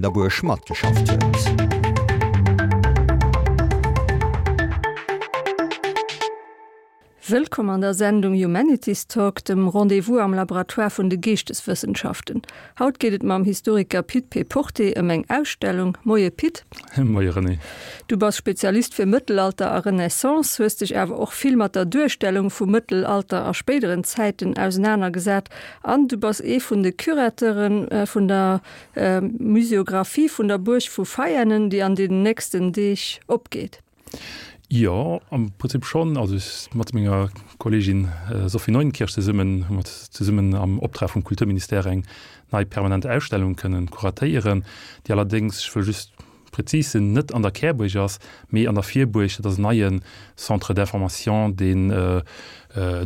Der Buerg matgeschafft huet. Wëllkomm an der Sendung Humanities Talk, dem Rendez-vous am Laboratoire vun de Geeschteswëssenschaften. Haut geet et mam Historiker Pit P. Porté ëm eng Ausstellung. Moie Pit. Moie René. Du bass Spezialist fir Mëttelalter a Renaissance, hues dech awer och vill mat der Duerstellung vum Mëttelalter a spéideren Zäiten ausenanergesat an du bass ee vun de Curateure vun der Museographie vun der Buerg vu Veianen, déi an den nächsten Deeg opgeet. Jo, am Prinzip schonn. Also ech mat menger Kolleegin Sophie Neuenkirch zesummen hu mer zesummen am Optrag vum Kulturministère eng nei permanent Ausstellung kënnen kuratéieren, déi allerdéngs, ech wëll just prezis sinn, net an der Kärbuerg ass, mee an der Virbuerg. Dat ass en neie Centre d'information, deen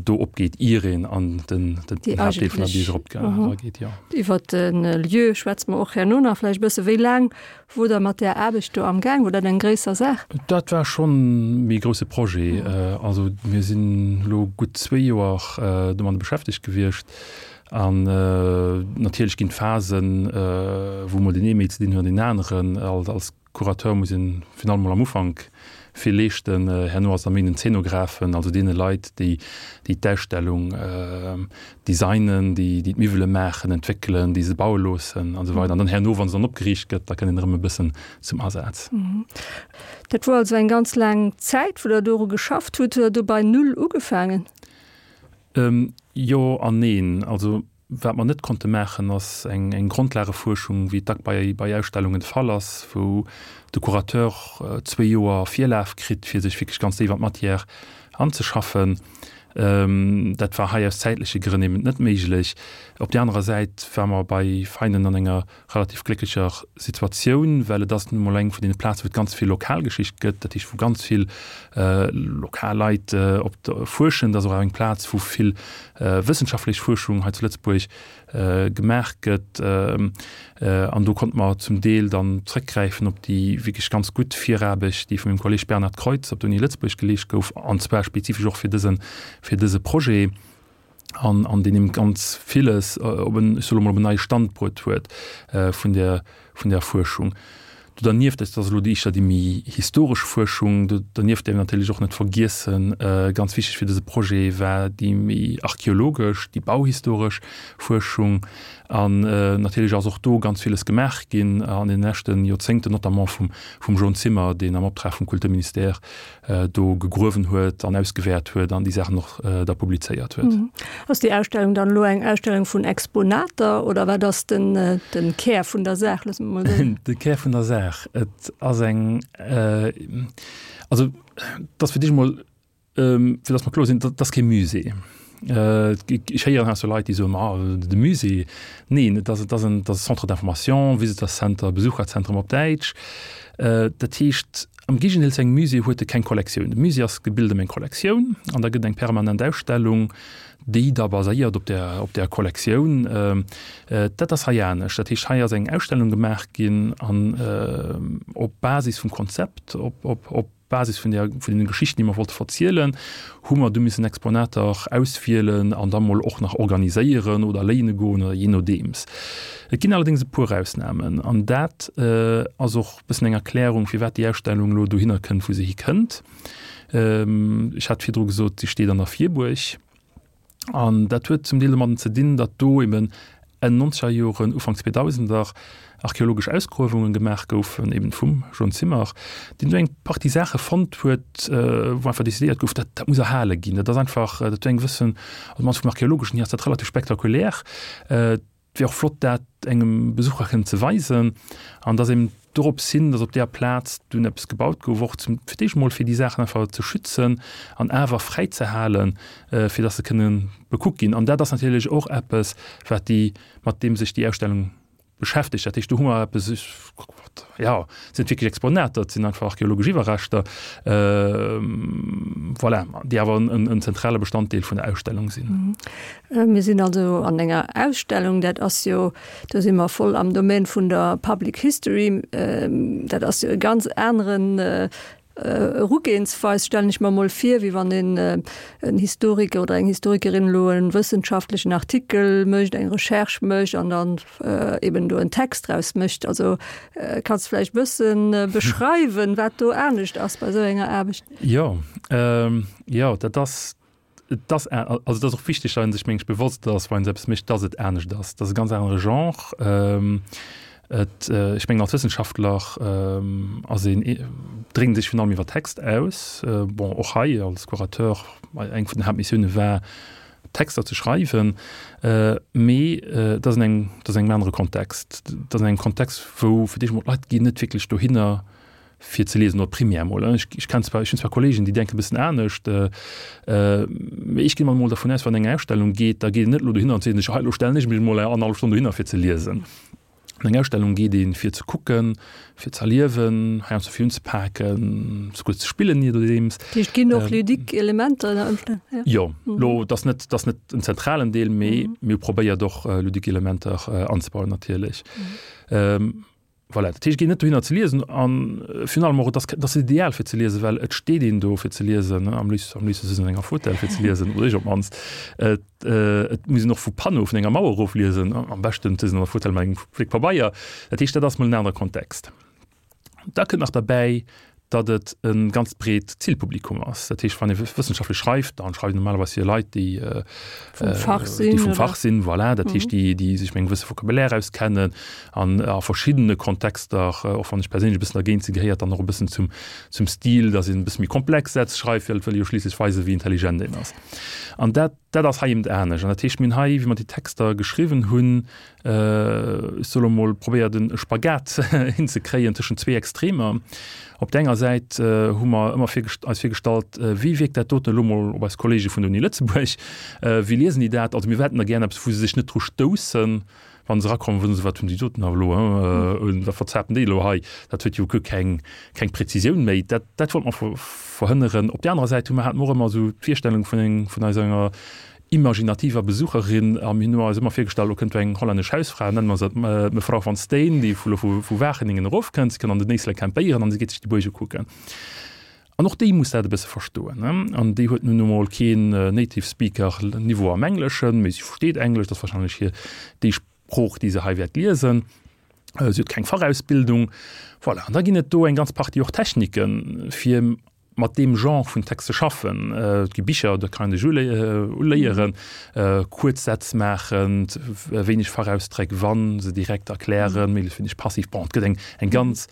do opgeet, ier een an den Haaptdeel vun der Bierg erageet. Jo. Iwwer de Lieu schwätze mer och herno nach vläicht e bësse. Wéi laang wor Der mat där Aarbecht do amgaang? Wor dat eng gréisser Saach? Dat war schonn méi e grousse Projet. Also mir sinn elo gutt zwéi Joer domadde beschäftegt gewiescht. An natierlech ginn et Phasen, wou mol deen ee méi ze dinn huet an deen aneren. Als Curateur muss een virun allem mol am Ufank vill leeschten. Herno ass et da méi den Zeenographen, also deene Leit, déi déi d'Ausstellung designen, déi déi d'Miwwele maachen, entwéckelen, déi se baue loossen an esou weider. An dann herno, wa se dann opgeriicht gëtt, da kënnt een erëm e bëssen zum Asaz. Dat wor also eng ganz laang Zäit, wou Der doru geschafft hutt. Hutt Der do bei Null ugefaangen? Jo an neen. Also wat mer net konnte maachen, ass eng Grondlagefuerschung, wéi et dack bei Ausstellungen de Fall ass, wou de Curateur zwéi Joer Virlaf kritt, fir sech wierklech ganz déif an d'Matière anzeschaffen. Dat war hei aus zäitleche Grënn eben net méiglech. Op där anerer Säit ware mer bei Veinen an enger relativ glécklecher Situatioun, well et ass nun emol eng vun deene Plazen, wou et ganz vill Lokalgeschicht gëtt, dat heescht, wou ganz vill lokal Leit op fuerschen. Et ass och eng Plaz, wou vill wëssenschaftlech Fuerschung hei zu Lëtzebuerg gemaach gëtt. An do konnte mer zum Deel dann zrëckgräifen op déi wierklech ganz gutt Viraarbecht, déi vun mengem Kolleeg Bernhard Kreutz op der Uni Lëtzebuerg geleescht gouf, an zwar spezifesch och fir dëse, fir dëse Projet. an an deen eben ganz villes op en, ech soe lo mol, op en neie Stand bruet huet vun der vun der Fuerschung. Do dernieft, dat ass elo déi éischter déi méi historesch Fuerschung, do dernieft däerf een natierlech och net vergiessen, ganz wichteg fir dëse Projet war déi méi archeologesch, déi bauhistoresch Fuerschung. An natierlech ass och do ganz villes gemaach ginn an deene leschte Joerzéngten, notamment vum vum Jean Zimmer, deen am Optrag vum Kulturministère do gegruewen huet an ausgewäert huet an déi Saachen och da publizéiert huet. Ass déi Ausstellung dann elo eng Ausstellung vun Exponater oder wat ass den den Kär vun der Saach, loosse mer mol soen? De Kär vun der Saach, et ass eng, also et ass fir d'éischt emol, fir datt mer kloer sinn, dat ass kee Musée. Ech héieren heiansdo Leit, déi soen, ma de Musée. Neen, et ass, et ass en, et ass e Centre d'information, Visitors Center, Besucherzentrum op Däitsch. Dat heescht, am Géigendeel zu engem Musée huet e keng Kollektioun. De Musée ass gebilt ëm eng Kollektioun an da gëtt eng permanent Ausstellung, déi da baséiert op där, op där Kollektioun. Dat ass hei anescht. Dat heescht, hei ass eng Ausstellung gemaach ginn an op Basis vum Konzept, op, op, op Basis vun der, vun den Geschichten, déi mer wollte verzielen, hu mer du missen Exponater auswielen an da mol och nach organiséieren oder léine goen oder jee nodeems. Et ginn allerdéngs e puer Ausnamen an dat ass och e bëssen eng Erklärung, firwat déi Ausstellung elo dohinner kënnt, wou se hikënnt. Ech hat virdru gesot, si steet an der Virbuerg. An dat huet zum Deel domadden ze dinn, datt do eben Enn nonzeger Joren, Ufank zweedausender archeologesch Ausgruewungen gemaach goufen, eben vum John Zimmer, deen do eng Partie Saache fonnt huet, wou einfach decidéiert gouf, dat dat muss erhale ginn. Dat ass einfach, dat huet eng gewëssen, also mannst vum archeologeschen hier ass dat relativ spektakulär. Et wier och flott, dat engem Besucher kënnen ze weisen. An dass eben dorops hin, dass op deeër Plaz dunn eppes gebaut gouf, och zum, fir d'éischt emol fir déi Saachen einfach ze schützen an awer fräi ze halen, fir dass se kënne bekuckt ginn. An dat ass natierlech och eppes, wat déi, mat deem sech déi Ausstellung beschäftegt. Dat heescht, do hu mer eppes, jo, et sinn net wierklech Exponater, et sinn einfach archeologesch Iwwerreschter, voilà, déi awer en zentrale Bestanddeel vun der Ausstellung sinn. Mir sinn also an enger Ausstellung, dat ass jo, do si mer voll am Domaine vun der Public History, dat ass jo e ganz aneren. Erugehensweis, stellen ech mer emol vir, wéi wann een en Historiker oder eng Historikerin elo e wëssenschaftlechen Artikel mécht, eng Recherche mécht an dann eben do en Text draus mécht. Also kanns de vläicht e bësse beschreiwen, wat do anescht ass bei esou enger Aarbecht? Jo, jo, dat ass Et ass, also et ass och wichteg, datt ee sech, meng ech, bewosst ass, wann een esou eppes mécht, datt et anescht ass. Et ass e ganz anere Genre. Et, ech mengen, als Wëssenschaftler ass een, drénkt sech virun allem iwwer Text aus. Bon, och hei als Curateur, eng vun den Haaptmissioune war, Texter ze schreiwen. Mee et ass an engem, et ass an engem anere Kontext. Et ass an engem Kontext, wou fir d'éischt emol d'Leit ginn net wierklech dohinner, fir ze liesen, oder primär mol. Ech, ech kenn zwar, ech hunn zwar Kollegen, déi denken e bëssen anescht, mee ech ginn emol dervun aus, wann eng Ausstellung geet, da geet een net elo dohinner an seet sech, hei elo stellen ech mech emol eng annerhallef Stonn dohinner fir ze liesen. An eng Ausstellung geet een, fir ze kucken, fir ze erliewen, heiansdo fir unzepaken, souguer ze spillen, je nodeems. Dat heescht, et ginn och ludique Elementer ënner Ëmstänn, ja? Jo, elo, et ass net, et ass net en zentralen Deel, mee mir hu probéiert och ludique Elementer anzebauen natierlech. Voilà, dat heescht, et geet net dohinner ze liesen an virun allem och, et ass, et ass ideal fir ze liesen, well et steet een do fir ze liesen, am léifsten, am léifste sëtzt een an enger Fauteuil fir ze liesen, oder ech op d'mannst. Et, et muss een och vu Panneau, vun enger Mauer erofliesen, am beschten sëtzt een an der Fauteuil mat engem Fléck Pabeier. Dat heescht, dat ass mol en anere Kontext. Da kënnt nach derbäi, datt et e ganz breet Zilpublikum ass. Dat heescht, wann ee wëssenschaftlech schreift, dann schreift een normalerweis fir Leit, déi vum Fach sinn, déi vum Fach sinn, voilà. Dat heescht, déi, déi sech mat engem gewësse Vocabulaire auskennen an a verschiddene Kontexter, och wann ech perséinlech e bëssen dergéint sinn, gehéiert dann och e bëssen zum, zum Stil, datt een e bësse méi komplex Sätz schreift, well et wëll ee jo schliisslech weisen, wéi intelligent een ass. An dat, dat ass hei eben anescht. An dat heescht, mir hunn hei, wéi mer déi Texter geschriwwen hunn, Ech soe lo mol, probéiert e Spagat hinzekréien tëschent zwee Extremer. Op der enger Säit hu mer ëmmer eis virgestallt, wéi wierkt dat doten elo mol op eis Kollege vun der Uni Lëtzebuerg, wéi liesen déi dat? Also mir hätten da gären eppes, wou se sech net dru stoussen, wa se erakommen, wou se soen, wat hunn déi doten awer elo, wat verzapen déi elo hei, dat huet jo guer keng keng Präzisioun méi. Dat dat wollte mer verhënneren. Op där anerer Säit hu mer, hate mer och ëmmer esou d'Virstellung vun eng vun eis enger imaginativer Besucherin a mir hunn eis ëmmer virgestallt, elo kënnt do eng hollännesch Hausfra, nennen mer se d'Mevrouw van Steen, déi vu vu Wageningen erofkënnt, si kënnt an den Éislek campéieren an si geet sech déi Buerg ukucken. An och déi muss dat e bësse verstoen, ne? An déi huet nun emol keen Native Speaker Niveau am Engleschen, mee si versteet Englesch, dat ass warscheinlech hir déi Sprooch, déi se hei wäert liesen. Si huet keng Fachausbildung. Voilà, an da ginn et do eng ganz Partie och Techniken, fir mat deem Genre vun Text ze schaffen. Et gi Bicher, do kann een sech uléieren, kuerz Sätz maachen, wéineg Fachausdréck, wa se direkt erklären, méiglechst wéineg passiv. Bon, et gëtt eng eng ganz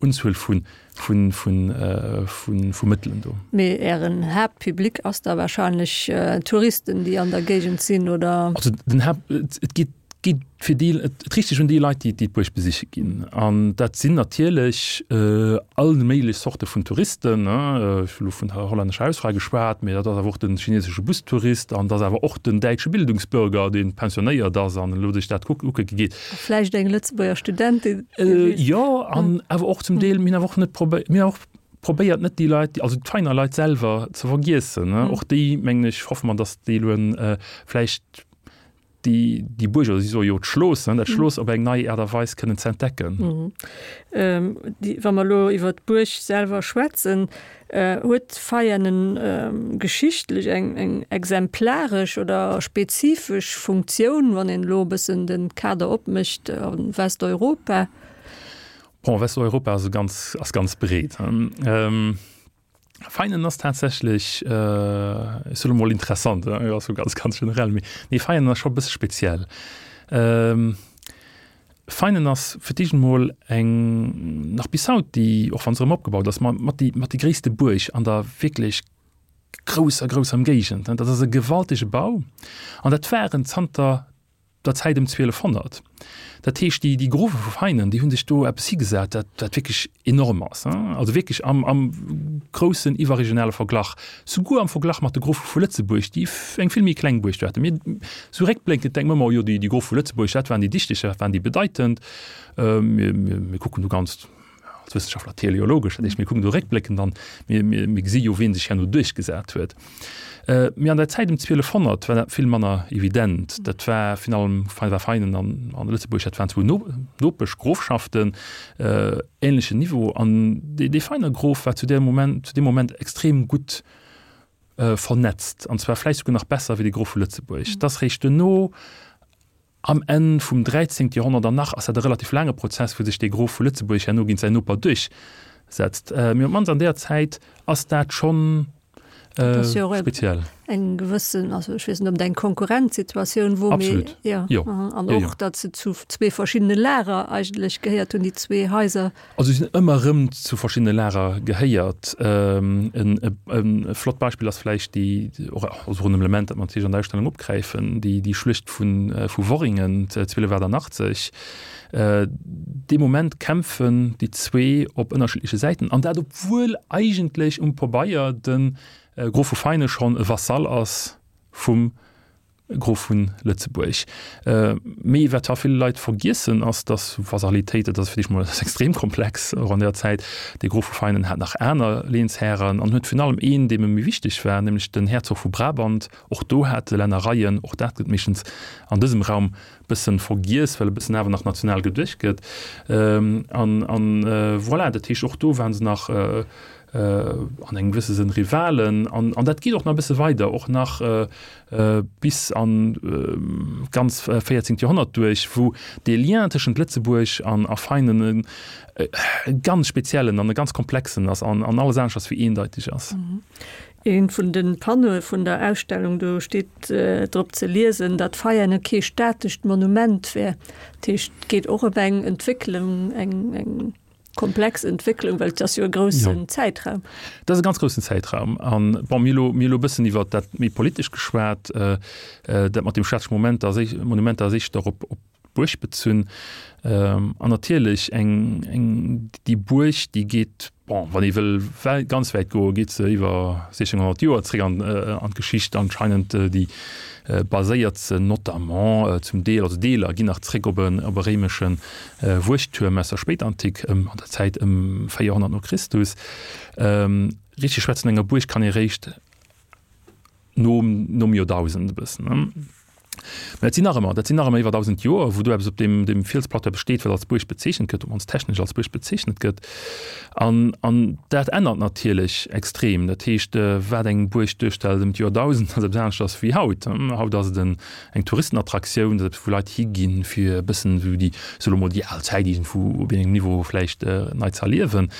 Unzuel vu vu vu vu Mëttelen do. Mee Ären Haaptpublic ass da warscheinlech Touristen, déi an der Géigend sinn, oder? Also den Haapt, et geet geet fir déi, et riicht sech un déi Leit, déi d'Buerg besiche ginn. An dat sinn natierlech all méiglech Zorte vun Touristen. Ech hu lo vun der hollännescher Hausfra geschwat, mee dat ass awer och de chinesesche Bustourist an dat ass awer och den däitsche Bildungsbürger, dee pensionéiert ass an elo sech dat kucke geet. A vläicht eng Lëtzebuerger Studentin. Jo, an awer och zum Deel, mir hunn awer och net probéiert, mir hunn och probéiert net déi Leit, also d'Veiner Leit selwer ze vergiessen. Och déi, mengen ech, hoffe mer, datt déi elo vläicht déi, déi Buerg, oder si soe jo d'Schloos, ne, dat Schloos op eng nei Aart a Weis kënnen ze entdecken. Déi, wa mer elo iwwer d'Buerg selwer schwätzen, huet Veianen geschichtlech eng, eng exemplaresch oder spezifesch Funktioun, wann een elo e bëssen de Kader opmécht a Westeuropa? Bon, Westeuropa ass e ganz, ass ganz breet. Feinen ass tatsächlech, ech soe lo mol interessant, ass jo ganz, ganz generell, mee nee, Feinen ass scho e bësse speziell. Feinen ass fir d'éischt emol eng, nach bis haut, déi, och wa se erëm opgebaut ass, ma mat déi, mat déi gréisste Buerg an der wierklech grousser, grousser Ëmgéigend. Dat ass e gewaltege Bau an dat waren zanter der Zäit ëm 1200. Dat heescht, déi, déi Grofe vu Veinen, déi hu sech do eppes higesat, dat, dat wierklech enorm ass, also wierklech am, am groussen iwwerregionale Verglach, souguer am Verglach mat de Grofe vu Lëtzebuerg, déi eng vill méi kleng Buerg do haten. Mir, sou réckblénkend denke mer ëmmer, oh jo, déi, déi Grofe vu Lëtzebuerg, dat waren déi Dichteg, dat waren déi Bedeitend. Mir, mir, mir kucken do ganz. als Wëssenschaftler teleologesch, dat heescht mir kucken do réckbléckend an mir, mir, mir gesi jo wien sech herno duerchgesat huet. Mee an der Zäit ëm 1200 war dat vill manner evident. Dat war virun allem war Veinen an, an Lëtzebuerg, dat waren zwou no, Nopeschgrofschaften, ähnlechen Niveau an dee, dee Veiner Grof war zu där Moment, zu deem Moment extrem gutt vernetzt an zwar vläicht souguer nach besser wéi de Grof vu Lëtzebuerg. Et ass réischt duerno, Am Enn vum 13. Joerhonnert, an nach ass dat e relativ laange Prozess, wou sech dee Grof vu Lëtzebuerg herno géint säin Noper duerchsetzt, mee op d'mannst an deeër Zäit ass dat schonn speziell. Eng gewëssen, also ech weess net, ob et eng Konkurrenzsituatioun wor, mee Absolut, jo, jo, an och, datt se zu zwee verschiddene Lager eigentlech gehéiert hunn, déi zwee Haiser. Also si sinn ëmmer erëm zu verschiddene Lager gehéiert. E flott Beispill ass vläicht déi, och also en Element, dat mer natierlech an der Ausstellung opgräifen, déi déi Schluecht vu vu Worringen 1288. Dee Moment kämpfen déi zwee op ënnerschiddleche Säiten, an dat obwuel eigentlech um Pabeier de Grof vu Feine schonn e Vasall ass vum Grof vun Lëtzebuerg. Mee wat ha vill Leit vergiessen ass, datt Vasalitéit, dat ass fir d'éischt mol extrem komplex, och an där Zäit, de Grof vu Feinen hat nach aner Lehnshären an huet virun allem een, deem e méi wichteg war, nämlech den Herzog vu Brabant. Och do hat e Lännereien, och dat gëtt meeschtens an dësem Raum bëssen vergiess, well e bëssen awer nach national geduecht gëtt. An, an voilà, dat heescht och do waren se nach an engem gewësse Sënn Rivalen. An, an dat geet och nach e bësse weider, och nach bis an d'ganz 14. Joerhonnert duerch, wou dee Lien tëschent Lëtzebuerg an a Feinen e ganz speziellen an e ganz komplexen ass an an alles aneschters wéi eendeiteg ass. Ee vun de Panneaue vun der Ausstellung, do steet drop ze liesen, datt Veianen kee statescht Monument wär. Dat heescht, et geet och ëm eng Entwécklung, eng eng. Komplex Entwécklung, well et ass jo e groussen ja. Zäitraum. Dat ass e ganz groussen Zäitraum. An bon, mir elo, mir elo e bëssen iwwer dat méi politesch geschwat, äh, äh, dat mat dem statesche Moment ass, Monument ass éischter op, op d'Buerg bezunn. Ähm, an natierlech eng, eng, déi Buerg, déi geet, bon, wann ee wëll ganz wäit goen, geet se iwwer 1600 Joer zréck an, äh, an d'Geschicht anscheinend, déi baséiert se notamment zum Deel, also Deeler ginn nach zréck op e, op e réimeschen Wuechttuerm aus der Spéitantik, ëm an der Zäit ëm 400 no Christus. Richteg schwätzen enger Buerg kann ee réischt nom nom Joerdausend e bëssen. Mä dat sinn nach ëmmer, dat sinn nach ëmmer iwwer 1.000 Joer, wou do eppes op deem deem Fielsplateau eppes steet, wat als Buerg bezeechent gëtt, op mannst technesch als Buerg bezeechnet gëtt. An an dat ännert natierlech extrem. Dat heescht, wat eng Buerg duerstellt ëm d'Joerdausend, ass eppes aneschters wéi haut. Haut ass et en eng Touristenattraktioun, dat ass eppes wou Leit higinn, fir e bëssen esou déi, soe lo mol, déi al Zäit iergendwou op engem Niveau vläicht nei ze erliewen.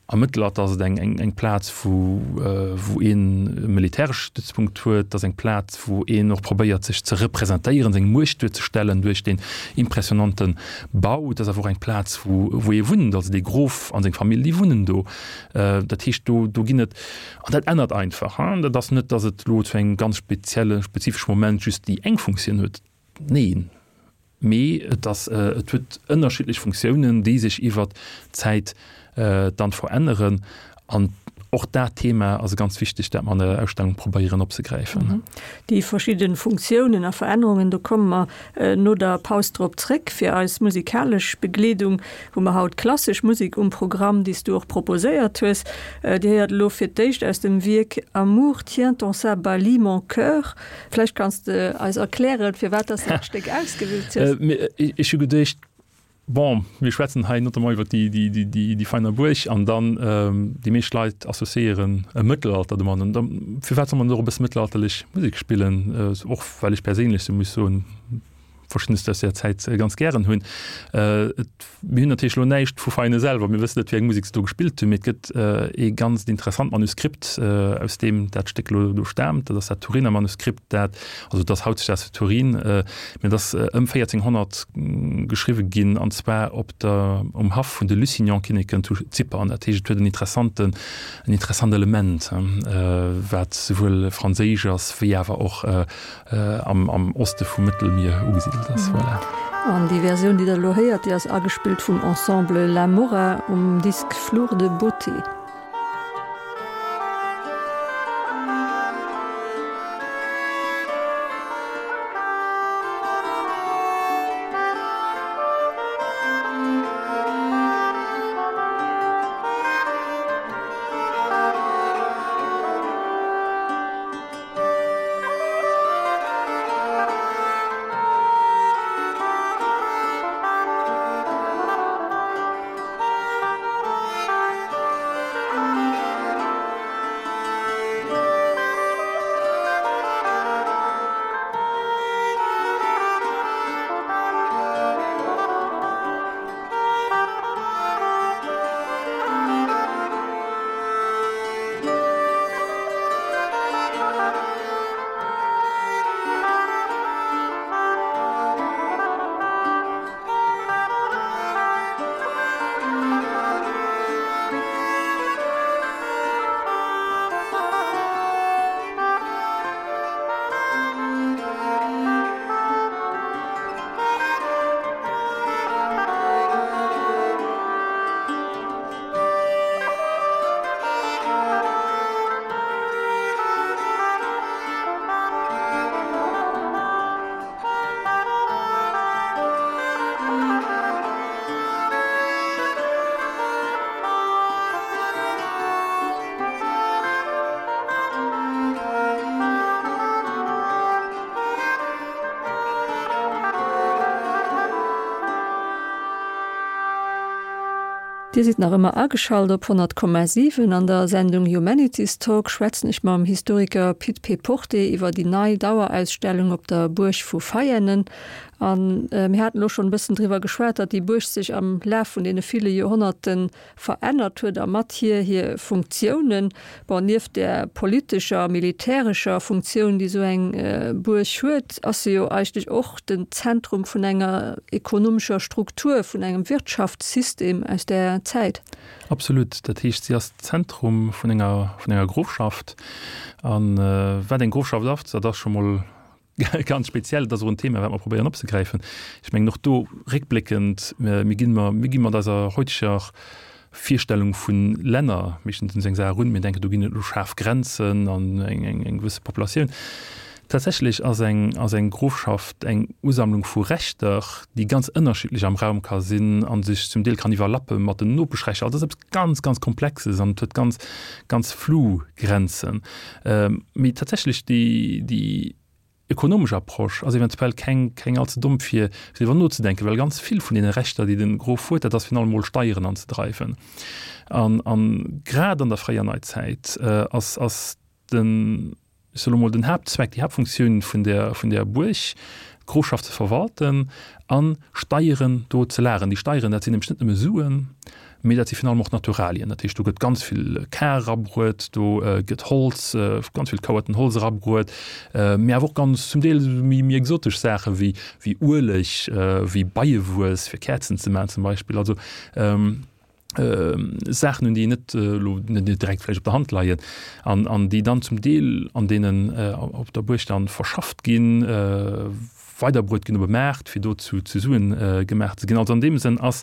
Am Mëttelalter ass et eng, eng, eng Plaz wou, wou een e militäresche Stützpunkt huet, et ass eng Plaz wou een och probéiert sech ze representéieren, seng Muecht duerzestellen duerch deen impressionante Bau. Et ass awer och eng Plaz wou, wou ee wunnt, also dee Grof an seng Famill, déi wunnen do. Dat heescht do, do ginn et An dat ännert einfach. Dat ass net, datt et elo zu engem ganz spezielle, spezifesche Moment just déi eng Funktioun huet. Neen, mee et ass, et huet ënnerschiddlech Funktiounen, déi sech iwwert d'Zäit dann veränneren. An och dat Thema ass e ganz wichtegt, dat mer an der Ausstellung probéieren opzegräifen. Déi verschidde Funktiounen a Verännerungen, do komme mer no der Paus drop zréck. Fir eis musikalesch Begleedung hu mer haut klassesch Musek um Programm, déi s du och proposéiert hues. Dir héiert elo fir d'éischt aus dem Wierk Amour tient en sa balie mon cœur. Vläicht kanns de eis erklären, firwat dass de dat Stéck ausgewielt hues? Ech hu geduecht, bon, mir schwätzen hei notamment iwwer déi Veiner Buerg an dann déi meescht Leit associéieren e Mëttelalter domat. An da firwat soll man net och e bësse mëttelalterlech Musek spillen? Och well ech perséinlech, sou muss soen, Verschiddenes aus där Zäit ganz gären hunn. Mir hunn natierlech elo näischt vu Veine selwer, mir wëssen net, wéi eng Musek se do gespillt hunn, mee et gëtt ee ganzt interessant Manuskript, aus deem dat Stéck elo do staamt. Dat ass dat Turiner Manuskript, dat, also et ass hautdesdaags zu Turin, mee et ass ëm 1400 geschriwwe ginn, an zwar op der, um Haff vun de Lusignan-Kinneken zu Zypern. Dat heescht, et huet en interessanten, en interessant Element, wat souwuel franséisch ass, wéi awer och am, am Oste vum Mëttelmier ugesidelt ass. Voilà. An déi Versioun, déi Der elo héiert, déi ass agespillt vum Ensemble La Morra um Disk Flour de beauté. Dir sidd nach ëmmer ageschalt op 100,7. An der Sendung Humanities Talk schwätzen ech mam Historiker Pit Péporté iwwer déi nei Dauerausstellung op der Buerg vu Veianen. A mir haten elo schonn e bëssen driwwer geschwat, datt déi Buerg sech am Laf vun deene ville Joerhonnerten verännert huet a mat hir hir Funktiounen. Bon, nieft där politescher a militärescher Funktioun, déi esou eng Buerg huet, ass se jo eigentlech och den Zentrum vun enger ekonomescher Struktur, vun engem Wirtschaftssystem aus där Zäit. Absolut. Dat heescht, si ass d'Zentrum vun enger, vun enger Grofschaft. A wat eng Grofschaft ass, dat ass scho mol Ganz speziell, dat ass och en Thema, wat mer probéieren opzegräifen. Ech mengen och do réckbléckend, mir ginn, mir gi mat eiser heuteger Virstellung vu Länner meeschtens un esou eng Saach erun. Mir denken, do ginn et elo schaarf Grenzen an eng, eng, eng gewësse Populatioun. Tatsächlech ass eng, ass eng Grofschaft eng Usammlung vu Rechter, déi ganz ënnerschiddlech am Raum ka sinn a sech zum Deel kann iwwerlappe mat den Nopeschrechter. Also dat ass eppes ganz, ganz Komplexes an et huet ganz, ganz flou Grenzen. Mee tatsächlech déi, déi ökonomesch Approche ass eventuell keng, keng allze domm fir driwwer nozedenken, well ganz vill vun deene Rechter, déi de Grof huet, dat ass virun allem mol Steieren anzedreiwen. An, an grad an der fréier Neizäit ass, ass den, ech soe lo mol, den Haaptzweck, déi Haaptfunktioun vun där, vun där Buerg, d'Grofschaft ze verwalten a Steieren do ze lageren. Déi Steieren, dat sinn nämlech net nëmme Suen, mee dat si virun allem och Naturalien. Dat heescht, do gëtt ganz vill Kar erabruet, do gëtt Holz, ganz vill Kouerten Holz erabruet, mee awer och ganz zum Deel méi, méi exotesch Saache wéi, wéi Ueleg, wéi Beiewuess fir Käerzen ze maachen zum Beispill. Also Saachen, un déi net elo net direkt vläicht op der Hand leien an, an déi dann zum Deel an deenen op der Buerg dann verschafft ginn, weiderbruet ginn op e Maart, fir do zu, zu Suen gemaach ze ginn. Also an deem Sënn ass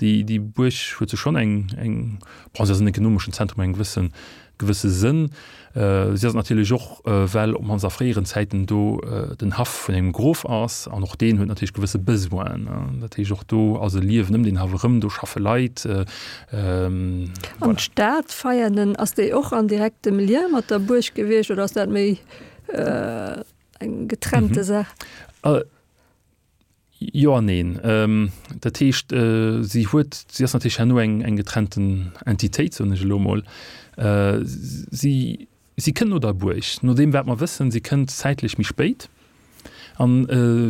déi, déi Buerg huet se schonn eng, eng, bon, se ass en ekonomeschen Zentrum engem gewëssen, gewësse Sënn. Si ass et natierlech och, well op mannst a fréieren Zäiten do den Haff vun engem Grof ass an och deen huet natierlech gewësse Besoinen. Dat heescht, och do ass e Liewen ëm deen Haff erëm, do schaffe Leit. An d'Stad Veianen, ass déi och an direktem Lien mat der Buerg gewiescht oder ass dat méi eng getrennte Saach? Jo an neen. Dat heescht, si huet, si ass natierlech herno eng, eng getrennten Entitéit, soen ech elo emol. Si, si kënnt no der Buerg, no deem wat mer wëssen, si kënnt zäitlech méi spéit. An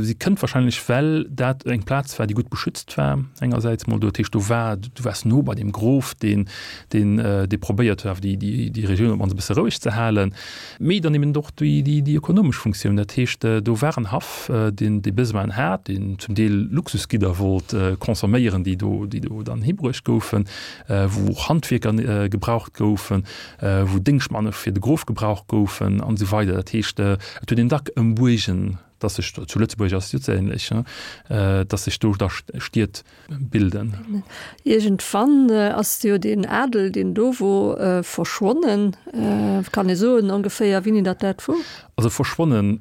si kënnt wahrscheinlech, well dat eng Plaz war, déi gutt beschützt war engersäits emol. Dat heescht, do war, du waars no bei deem Grof, deen, deen, dee probéiert huet awer déi, déi, déi Regioun op d'mannst e bësse roueg ze halen. Mee dann eben och déi, déi, déi ökonomesch Funktioun. Dat heescht, do war en Haff, deen dee Besoin hat, deen zum Deel Luxusgidder wollt consomméieren, déi do, déi do dann hibruecht goufen, wou och Handwierker gebraucht goufen, wou Déngschtmanne fir de Grof gebraucht goufen an esou weider. Dat heescht, et huet een dack ëm Buergen, dass sech, zu Lëtzebuerg ass et jo ze ähnlech, dass sech do da Stied bilden. Iergendwann ass jo deen Adel, deen do wor, verschwonnen. Kann ee soen ongeféier, wéini datt dat wor? Also verschwonnen,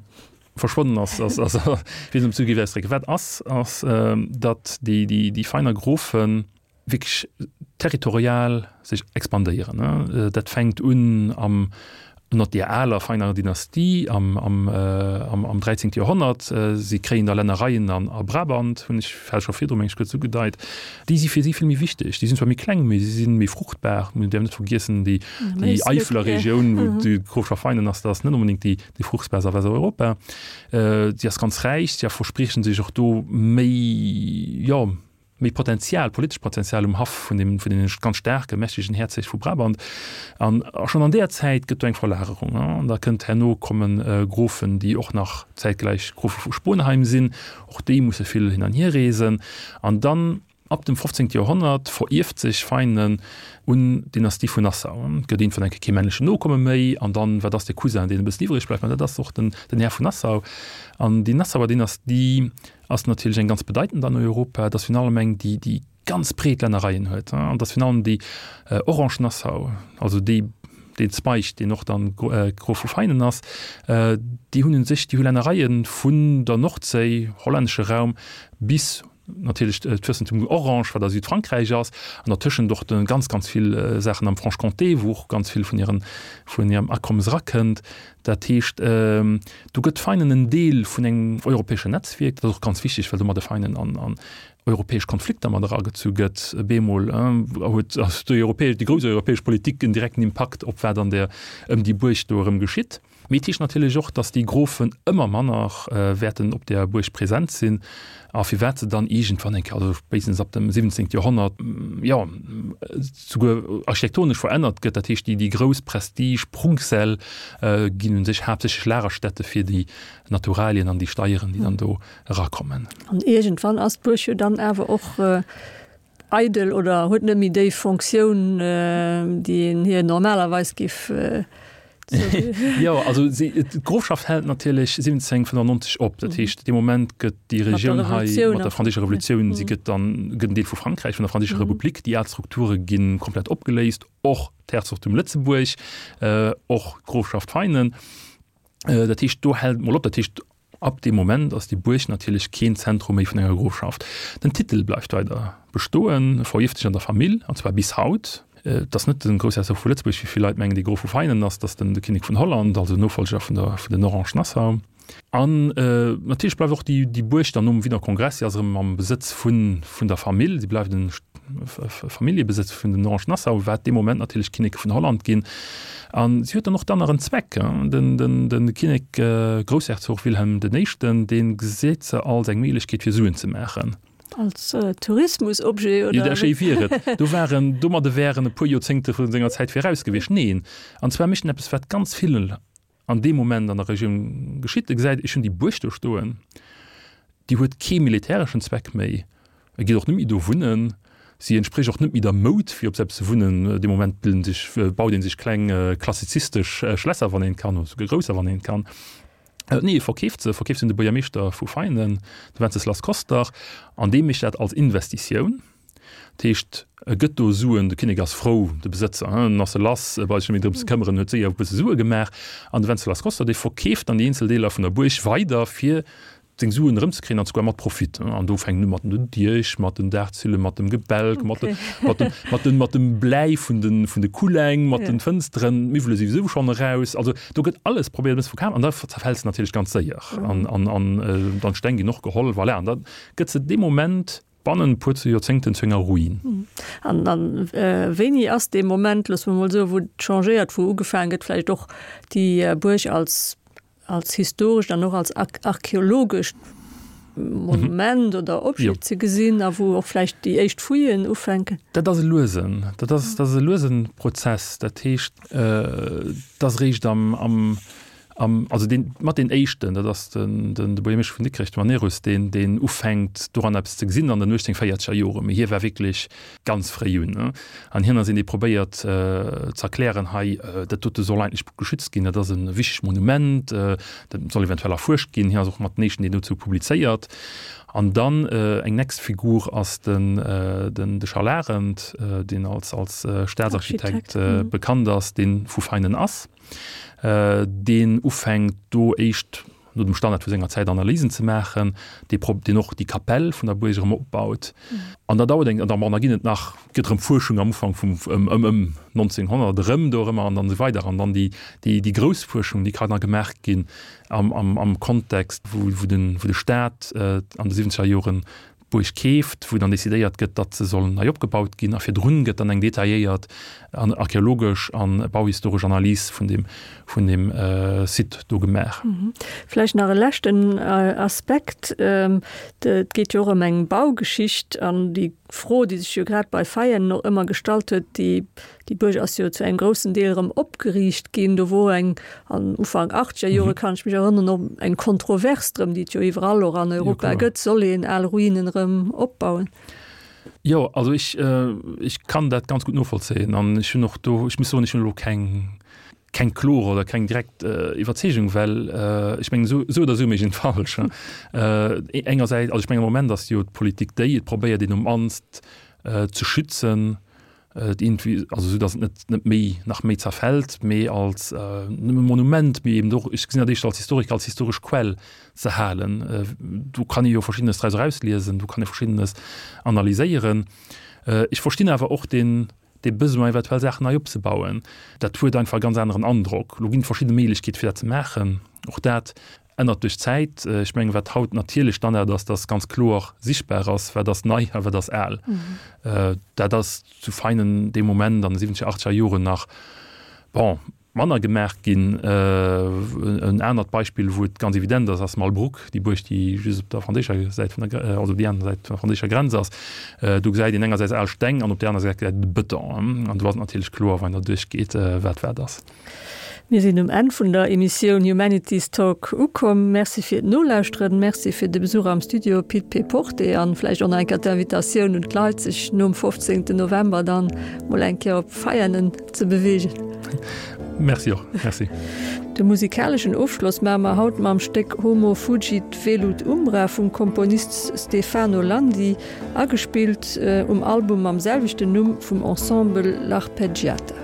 verschwonnen ass, ass, ass, wéi se zu géif ausdrécken. Wat ass, ass, datt déi, déi, déi feiner Grofen wierklech territorial sech expandéieren. Dat fänkt un am ënnert deer aler feiner Dynastie am, am, am, am 13. Joerhonnert. Si kréien da Lännereien an a Brabant, hunn ech vläicht scho virdru meng ech kuerz ugedeit. Déi si fir si vill méi wichteg. Déi sinn zwar méi kleng, mee si si méi fruchtbar. Mir däerfen net vergiessen, déi, déi Eifeler Regioun, wou d'Grofschaft Veinen ass, dat ass net onbedéngt déi, déi fruchtbarst a Westeuropa. Si ass ganz räich, si verspriechen sech och do méi, jo, méi Potenzial, politescht Potenzial um Haff vun deem, vun deene ganz staarke, mächtegen Herzeg vu Brabant. An schonn an deeër Zäit gëtt do eng Verlagerung. An da kënnt herno komme Grofen, déi och nach zäitgläich Grofe vu Sponheim sinn. Och déi musse vill hin an hier reesen. An dann ab dem 15. Joerhonnert verierft sech Veinen un d'Dynastie vun Nassau. Et gëtt iergendwann eng Kéier kee männlechen Nokomme méi. An dann, wat ass de Cousin, deen e bëssen iwwreg bleift? Ma dat ass och den, den Här vun Nassau. An déi Nassauer Dynastie ass natierlech eng ganz bedeitend an Europa, et ass virun allem eng, déi déi ganz breet Lännereien huet, an et ass virun allem déi Orange-Nassau, also déi deen Zweig, deen och dann Grof vu Veinen ass, déi hunn un sech, déi hu Lännereie vun der Nordséi, hollännesche Raum, bis. natierlech d'Fürstentum Orange, wat a Südfrankräich ass, an dertëschent och de ganz, ganz vill Saachen am Franche-Comté, wou och ganz vill vun hiren, vun hirem Akommes erakënnt. Dat heescht, do gëtt Veinen en Deel vun engem europäeschen Netzwierk. Dat ass och ganz wichteg, well domadde Veinen an, an europäesch Konflikter mat eragezu gëtt. Bemol huet déi europäesch, déi grouss europäesch Politik en direkten Impakt op wat an der, ëm déi Buerg do erëm geschitt. Mee et heescht natierlech och, datt déi Grofen ëmmer manner wäerten op där Buerg present sinn a firwat se dann iergendwann eng Kéier, also spéitstens ab dem 17. Joerhonnert, jo, souguer architektonesch verännert gëtt. Dat heescht, déi grouss Prestige-Prunksäll ginn u sech haaptsächlech Lagerstätte fir déi Naturalien an déi Steieren, déi dann do erakommen. An iergendwann ass d'Buerg jo dann awer och eidel oder huet net méi déi Fonctioun, déi een hir normalerweis giff Jo, also d'Grofschaft hält natierlech 1795 op. Dat heescht, dee Moment gëtt déi Regioun hei mat der Franséischer Revolutioun, si gëtt dann gëtt en Deel vu Frankräich, vun der Franséischer Republik. Déi al Strukture gi komplett opgeléist, och d'Herzogtum Lëtzebuerg, och d'Grofschaft Veinen. Dat heescht, do hält et mol op. Dat heescht, Ab deem Moment ass déi Buerg natierlech keen Zentrum méi vun enger Grofschaft. Den Titel bleift weider bestoen, e verierft sech an der Famill, an zwar bis haut. Et ass net de Groussherzog vu Lëtzebuerg, wéi vill Leit mengen, dee Grof vu Veinen ass, et ass den de Kinnek vun Holland, also Nofollger vun der vun den Orange-Nassau. An natierlech bleift och déi déi Buerg dann nom Wiener Kongress, si ass erëm am Besëtz vun vun der Famill, si bleift en Familljebesëtz vun den Orange-Nassau, wat dee Moment natierlech d'Kinneke vun Holland ginn. An si huet dann och dann nach en Zweck. Den, den, den Kinnek, Groussherzog Wilhelm den Éischten, dee gesäit se als eng Méiglechkeet fir Suen ze maachen. Als Tourismusobjet, oder? Jo, dat schéi wier et. Do waren, domadde wär en e puer Joerzéngte vu senger Zäit viraus gewiescht. Neen, an zwar mécht en eppes, wat ganz vill an deem Moment an der Regioun geschitt. E gesäit, ech hunn déi Buerg do stoen, déi huet kee militäreschen Zweck méi, e geet och net méi do wunnen, si entsprécht och net méi der Moud, fir op eppes ze wunnen. Dee Moment bilden sech, baut ee sech kleng klassizistesch Schlässer, wann een kann, oder souguer grousser, wann een kann. Nee, e verkeeft se, e verkeeft se un de Buergermeeschter vu Veinen, de Wenceslas Koster, an dee mécht dat als Investitioun. Dat heescht, e gëtt do Suen, de Kinnek ass frou, de Besëtzer, en ass e lass, e brauch sech net méi drëm ze këmmeren, huet séier e bësse Sue gemaach. An de Wencelas Costa, dee verkeeft dann déi eenzel Deeler vun der Buerg weider, fir seng Suen erëmzekréien, an souguer mat Profit. An do fänkt en u mat den Diech, mat den Daachzillen, mat dem Gebälk, mat de, mat dem, mat dem, mat dem Bläi vun de, vun de Kulleng, mat den Fënsteren, d'Miwwele si souwisou schonn eraus. Also do gëtt alles probéiert e bësse verkaf an da zerfält se natierlech ganz séier. An, an, an dann d'Steng ginn och geholl, voilà. An da gëtt se dee Moment Bannen e puer Joerzéngten zu enger Ruin. An dann, wéini ass dee Moment, loosse mer mol soen, wou et changéiert, wou ugefaangen gëtt, vläicht och déi Buerg als, als historescht an och als archeologescht Monument oder Objet ze gesinn a wou och vläicht déi éischt Fouillen ufänken? Dat ass e luesen, dat ass, dat ass e luesen Prozess. Dat heescht, et ass eréischt am, am, Am, also deen, mat deen éischten, dat ass den, den, de Buergermeeschter vun Dikrech, de Manerus, deen, deen ufänkt doran eppes ze gesinn an den 1840er Joren. Mee hie war wierklech ganz fréi un, ne? An hien ass een, dee probéiert ze erklären, hei, dat dote soll eigentlech geschützt ginn, dat ass e wichtegt Monument, dat soll eventuell erfuerscht ginn. Hien ass och mat den éischten, deen dozou publizéiert. An dann eng nächst Figur ass den, den, de Charles Arendt, deen als, als Staatsarchitekt bekannt ass, dee vu Veinen ass. deen ufänkt do éischt no dem Standard vu senger Zäit Analysen ze maachen, dee prob deen och déi Kapell vun der Buerg erëm opbaut. An da dauert eng, an da, bon, da ginn et nach, gëtt erëm Fuerschung am Ufank vum, ëm, ëm, ëm 1900 erëm do erëmmer an dann esou weider. An dann déi, déi, déi grouss Fuerschung, déi kann da gemaach ginn am, am, am Kontext, wou, wou den, wou de Staat an de siwwenzeger Joren d'Buerg keeft, wou dann decidéiert gëtt, datt se soll nei opgebaut ginn, a virdrun gëtt dann eng detailléiert an archeologesch an bauhistoresch Analys vun deem, vun deem Site do gemaach. Vläicht nach e leschten Aspekt, Et geet jo och ëm eng Baugeschicht an déi Fro, déi sech jo grad bei Veianen och ëmmer gestallt huet, déi Déi Buerg ass jo zu engem groussen Deel erëm opgeriicht ginn. Do wor eng, an Ufank achtzeger Jore kann ech mech erënneren, och eng Kontrovers drëm, déi et jo iwwerall och an Europa gëtt, Soll een al Ruinen erëm opbauen? Jo, also ech, ech kann dat ganz gutt novollzéien an ech hunn och do, ech muss soen, ech hunn elo keng, keng kloer oder keng direkt Iwwerzeegung, well ech mengen, esou, esou oder esou mécht een et falsch. Engersäits, also ech mengen am Moment ass jo d'Politik déi, et probéiert een um mannst ze schützen. Iergendwéi, also esou datt et net net méi nach méi zerfält, mee als nëmme Monument, mee eben och, ech gesinn dat éischter als Historiker, als historesch Quell ze halen. Do kann ee jo Verschiddenes draus erausliesen, do kann ee Verschiddenes analyséieren. Ech verstinn awer och deen dee Besoin eventuell Saachen nei opzebauen. Dat huet einfach e ganz aneren Androck. Elo ginn et verschidde Méiglechkeete fir dat ze maachen. Och dat ännert duerch d'Zäit. Ech mengen, wat haut natierlech Standard ass, dass ganz kloer sichtbar ass, wat ass nei a wat ass al. Dat ass zu Veinen dee Moment an de siwwenzeger, achtzeger Joren nach, bon, manner gemaach ginn. En anert Beispill, wou et ganz evident ass, ass Malbrouck, déi Buerg, déi just op der franséischer Säit vun der, also op déi aner Säit vun der franséischer Grenz ass. Do gesäit een engersäits al Steng an op där aner Säit gesäit een de Bëton. An do ass et natierlech kloer, wann een der duerchgeet, wat wat ass. Mir sinn um Enn vun der Emissioun Humanities Talk ukomm. Merci fir d'Nolauschteren, Merci fir de Besuch am Studio, Pit P. Porte, an vläicht och nach eng Kéier d'Invitatioun un d'Leit, sech nom 15. November dann mol eng Kéier op Veianen ze beweegen. Merci och. Merci. De musikaleschen Ofschloss maache mer haut mam Stéck Homo fugit velut umbra vum Komponist Stefano Landi, agespillt um Album mam selwechten Numm vum Ensemble L'Arpeggiata.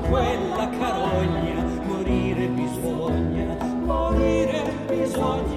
Quella carogna, morire bisogna, morire bisogna.